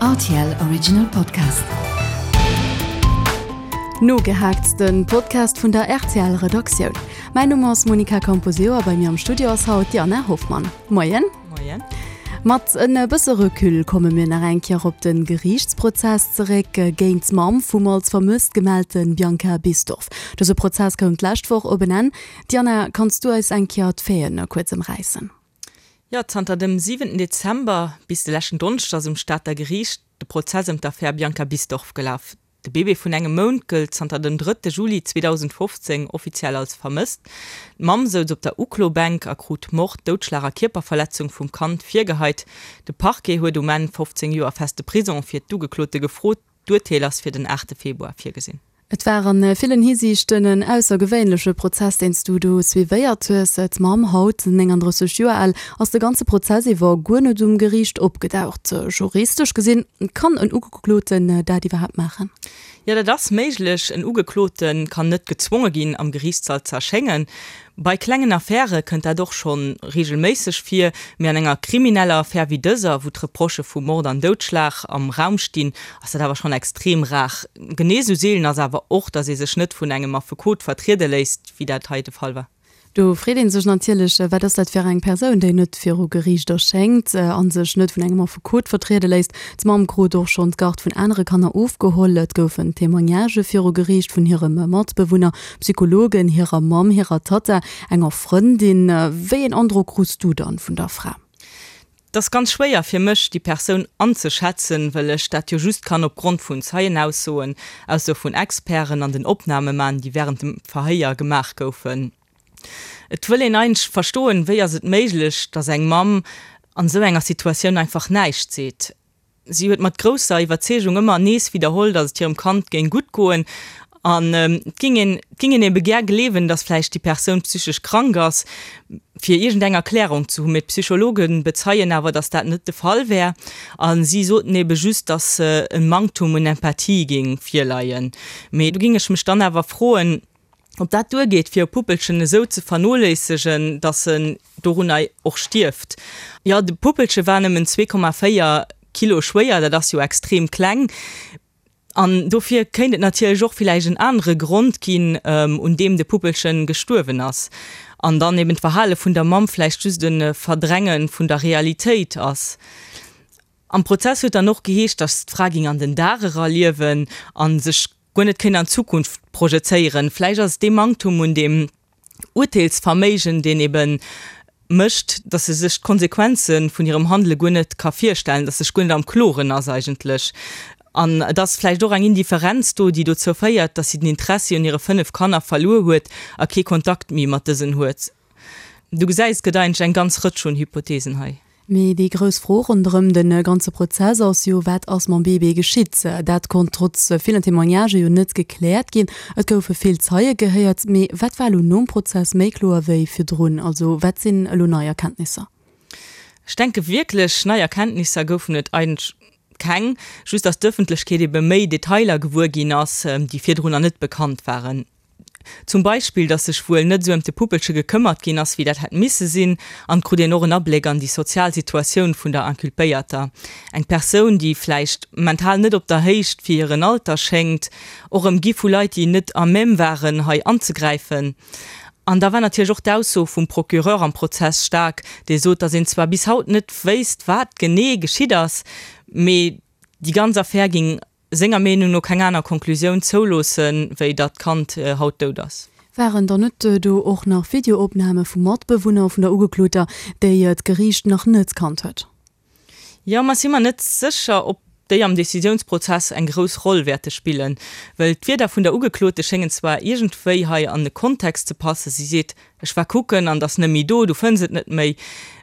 Rtl Original Podcast. Nogehaakt, den Podcast vun der rtl Redaktioun. Mäin Numm ass Monica Camposeo a bei mir am Studio ass haut d'Diana Hoffmann. Moien. Moien. Mat en bësse Recul komme mir nach eng Kéier op de Geriichtsprozess zeréck géint d'Mamm vum als vermësst gemellte Bianca Bisdorff. Dëse Prozess koum d'lescht Woch op en Enn. Diana, kanns du eis eng Kéier d'Faiten kuerz ëmräissen? Jo, zanter dem siwenten Dezember bis de leschten Donneschdeg ass um Stater Geriicht de Prozess ëm d'Affär Bianca Bisdorff gelaf. De Bébé vun engem Mount gëllt zanter dem drëtte Juli 2015 offiziell als vermësst. D'Mamm souz op der Uklobänk a krut Mord, Doudschlag a Kierperverletzung vum Kand virgeheit. De Parquet huet um Enn 15 Joer feste Prisong fir d'Ugeklote gefrot. D'Urteel ass fir den aachte Februar virgesinn. Et war a villen Hisiichten en aussergewéinleche Prozess, deen s du do suivéiert hues. D'Mamm, haut 39 Joer al, ass de ganze Prozess iwwer guer net um Geriicht opgedaucht. Juristesch gesinn, kann en Ugekloten dat iwwerhaapt maachen? Jo, dat ass méiglech. En Ugeklote kann net gezwonge ginn, am Geriichtssall ze erschéngen. Bei klengen Affäre kënnt dat och scho reegelméisseg vir, mee an enger krimineller Affär wéi dëser, wou d'Reprochë vu Mord an Doudschlag am Raum stinn, ass dat awer schonn extrem rar. Genee esou seelen ass awer och, datt ee sech net vun engem Affekot vertriede léisst, wéi dat hei de Fall war. Do freet ee sech natierlech, Wat ass dat fir eng Persoun, déi net viru Geriicht erschéngt a sech net vun engem Affekot vertriede léisst? D'Mamm krut och schonn d'Garde vun anere Kanner ofgeholl. Et goufen Témoignagë viru Geriicht vun hirem Matbewunner, Psychologen, hirer Mamm, hirer Tatta, enger Frëndin. Wéi een Androck krus du dann vun der Fra? Et ass ganz schwéier fir mech, déi Persoun anzeschätzen, well ech dat jo just kann opgrond vun Zeienaussoen, Aussoe vun Experten an den Opname man, déi wärend dem Verhéier gemaach goufen. Et wëll een eigentlech verstoen, wéi ass et méiglech, datt eng Mamm an esou enger Situatioun einfach näischt seet. Si huet mat grousser Iwwerzeegung ëmmer nees widderholl, datt et hirem Kand géing gutt goen. An et ging een, et ging een ebe gär gleewen, datt vläicht déi Persoun psychesch krank ass, fir iergendeng Erklärung ze hunn. Mee d'Psychologe bezeien awer, datt dat net de Fall wär. A si soten ebe just, datt e Manktum un Empathie géing virleien. Mee do ging ech mech dann awer froen, Ob dat duergeet, fir e Puppelchen esou ze vernoléissegen, datt en dorunner och stierft? Jo, de Puppelche war nëmmen 2,4 Kilo schwéier, dat ass jo extrem kleng. An dofir kéint et natierlech och villäicht en anere Grond ginn, un deem de Puppelchen gestuerwen ass. An dann eben d'Verhale vun der Mamm vläicht just e Verdränge vun der Realitéit ass. Am Prozess huet dann och geheescht, datt d'Fra géing an den Dag era liewen a sech guer net kéint an d'Zukunft projezéieren. Vläicht ass et dee Manktum un deem Urteelsverméigen, deen ebe mécht, datt se sech d'Konsequenze vun hirem Handele guer net ka virstellen, datt se sech guer net am Kloren ass eigentlech. An et ass vläicht och eng Indifferenz do, déi dozou féiert, datt si den Interessi un hire 5 Kanner verluer huet a kee Kontakt méi mat dësen huet. Du gesäis, et gëtt eigentlech eng ganz Rëtsch un Hypotheesen hei. Mee déi grouss Fro ronderëm de ganze Prozess ass jo, Wat ass mam Bébé geschitt? Dat konnt trotz villen Témoignagë jo net gekläert ginn. Et goufe vill Zeie gehéiert, mee wat war elo nom Prozess méi kloer wéi virdrun? Also wat sinn elo nei Erkenntnisser? Ech denke wierklech nei Erkenntnisser goufen et eigentlech keng, just datt d'Ëffentlechkeet ebe méi Detailer gewuer ginn ass, déi virdrunner net bekannt waren. Zum Beispill, datt sech wuel net esou ëm de Puppelche gekëmmert ginn ass, wéi dat hätt misse sinn. An et krut een och en Abléck an déi sozial Situatioun vun der Inculpéierter. Eng Persoun, déi vläicht mental net op der Héicht fir hiren Alter schéngt, och ëmgi vu Leit, déi net à même waren, hei anzegräifen. An da war natierlech och d'Ausso vum Procureur am Prozess staark, dee sot, datt een zwar bis haut net wéisst, wat genee geschitt ass, mee déi ganz Affär géing senger Meenung no keng aner Konklusioun zouloossen, wéi datt d'Kand haut dout ass. Waren dann net do och nach Videoopname vu Matbewunner vun der Ugekloter, déi d'Geriicht nach net kannt huet? Jo, ma si mer net sécher, ob déi am Decisiounsprozess eng grouss Roll wäerte spillen. Well d'Wierder vun der Ugeklote schéngen zwar iergendwéi hei an de Kontext ze passen, si seet, ech war kucken an et ass net méi do, du fënns et net méi,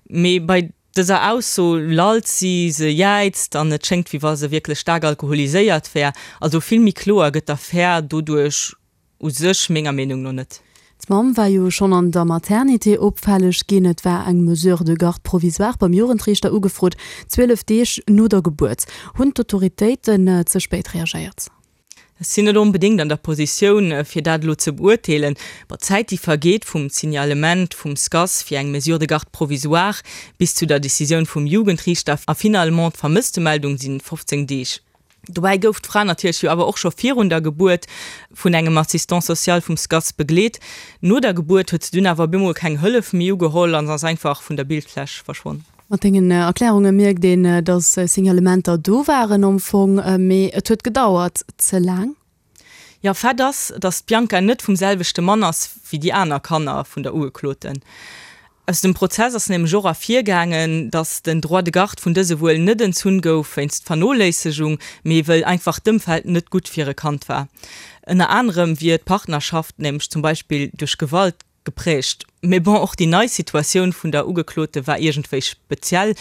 mee bei dëser Ausso lallt si, se jäizt an et schéngt wéi wa se wierklech staark alkoholiséiert wär. Also vill méi kloer gëtt d'Affär doduerch u sech menger Meenung no net. D'Mamm war jo schonn an der Maternité opfälleg ginn. Et war eng Mesure de garde provisoire beim Jugendriichter ugefrot, 12 Deeg no der Gebuert. Hunn d'Autoritéiten ze spéit reagéiert? Ech sinn net onbedéngt an der Positioun, fir dat elo ze beurteelen. Bon, d'Zäit, déi vergeet vum Signalement vum SCAS fir eng Mesure de garde provisoire bis zu der Decisioun vum Jugendriichter a finalement d'Vermësstemeldung, si 15 Deeg. Dobäi gouf d'Fra natierlech jo awer och scho virun der Gebuert vun engem Assistant social vum SCAS begleet. No der Gebuert huet se dunn awer op eemol keng Hëllef méi ugeholl an ass einfach vun der Bildfläch verschwonn. Mat dengen Erklärunge mierkt een, dass Signalementer do waren am Fong, mee et huet gedauert ze laang. Jo, Fait ass, dass d'Bianca net vum selwechte Mann ass wéi déi aner Kanner vun der Ugekloten. Aus dem Prozess ass nämlech och ervirgaangen, dass den Droit de garde vun dëse wuel net entzunn gouf wéinst Vernoléissegung, mee wëll einfach d'Ëmfeld net gutt fir e Kand war. Ënner anerem wier d'Partnerschaft nämlech zum Beispill duerch Gewalt Geprägt. Mee bon, och déi nei Situatioun vun der Ugeklote war iergendwéi speziell.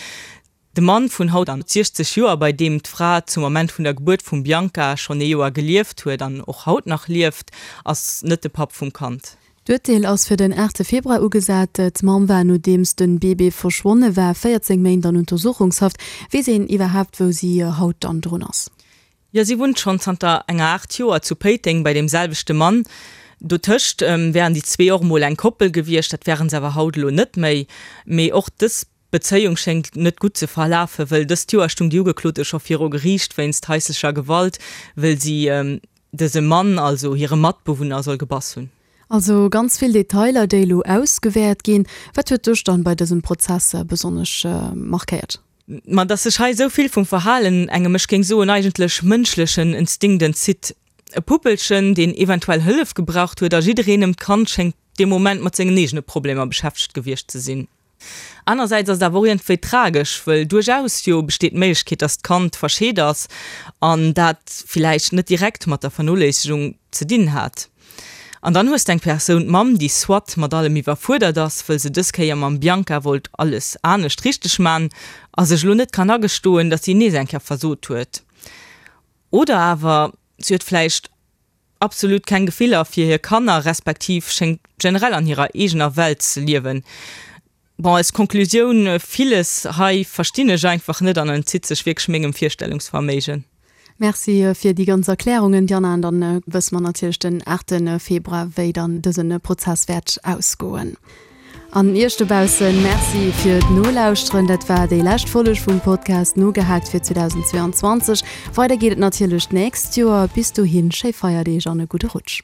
De Mann vun haut 60 Joer, bei deem d'Fra zum Ament vun der Gebuert vum Bianca schonn ee Joer gelieft huet an och haut nach lieft, ass net de Papp vum Kand. D'Urteel ass fir den 8 Februar ugesat. D'Mamm war, nodeems de Bébé verschwonne war, 14 Méint an Untersuchungshaft. Weess een iwwerhaapt, wou si haut dann drun ass? Jo, si wunnt schonn zanter enger Aart Joer zu Péiteng bei deem selwechte Mann. Dotëscht wären déi zwee och emol eng Koppel gewiescht, dat wären se awer haut elo net méi. Mee och dës Bezéiung schéngt net gutt ze verlafen, wëll dëst Joer stung déi Ugeklote scho viru Geriicht wéinst haislecher Gewalt, wëll si dëse Mann, also hire Matbewunner, soll gebass hunn. Also ganz vill Detailer, déi elo ausgewäert ginn. Wat huet dech dann bei dësem Prozess besonnesch markéiert? Ma dass sech hei esou vill vum Verhalen engem, ech géing soen eigentlech mënschlechen Instinkt entzitt. E Puppelchen, deen eventuell Hëllef gebraucht huet a jiddereen ëm d'Kand schéngt dee Moment mat sengen eegene Problemer beschäftegt gewiescht ze sinn. Anersäits ass et awer och iergendwéi tragesch, wëll duerchaus jo besteet d'Méiglechkeet, dass d'Kand verscheet ass an dat villäicht net direkt mat der Vernoléissegung ze dinn hat. An dann hues de eng Persoun, d'Mamm, déi soit mat allem iwwerfuerdert ass, wëll se dës Kéier mam Bianca wollt alles anescht richteg man a sech elo net kann agestoen, dass si nees eng Kéier versot huet. Oder awer si huet vläicht absolut keng Gefiller fir hir Kanner, respektiv schéngt generell an hirer eegener Welt ze liewen. Bon, als Konklusioun, villes hei verstinn ech einfach net an entzitt sech wierklech mengem Virstellungsverméigen. Merci fir déi ganz Erklärungen, Diana. An dann wësse mer natierlech den 8 Februar, wéi dann dëse Prozess wäert ausgoen. An Iech dobaussen Merci fir d'Nolauschteren. Dat war déi lescht Folleg vum Podcast Nogehaakt fir 2022. Weider geet et natierlech d'nächst Joer. Bis dohin, schéi Feierdeeg an e gudde Rutsch.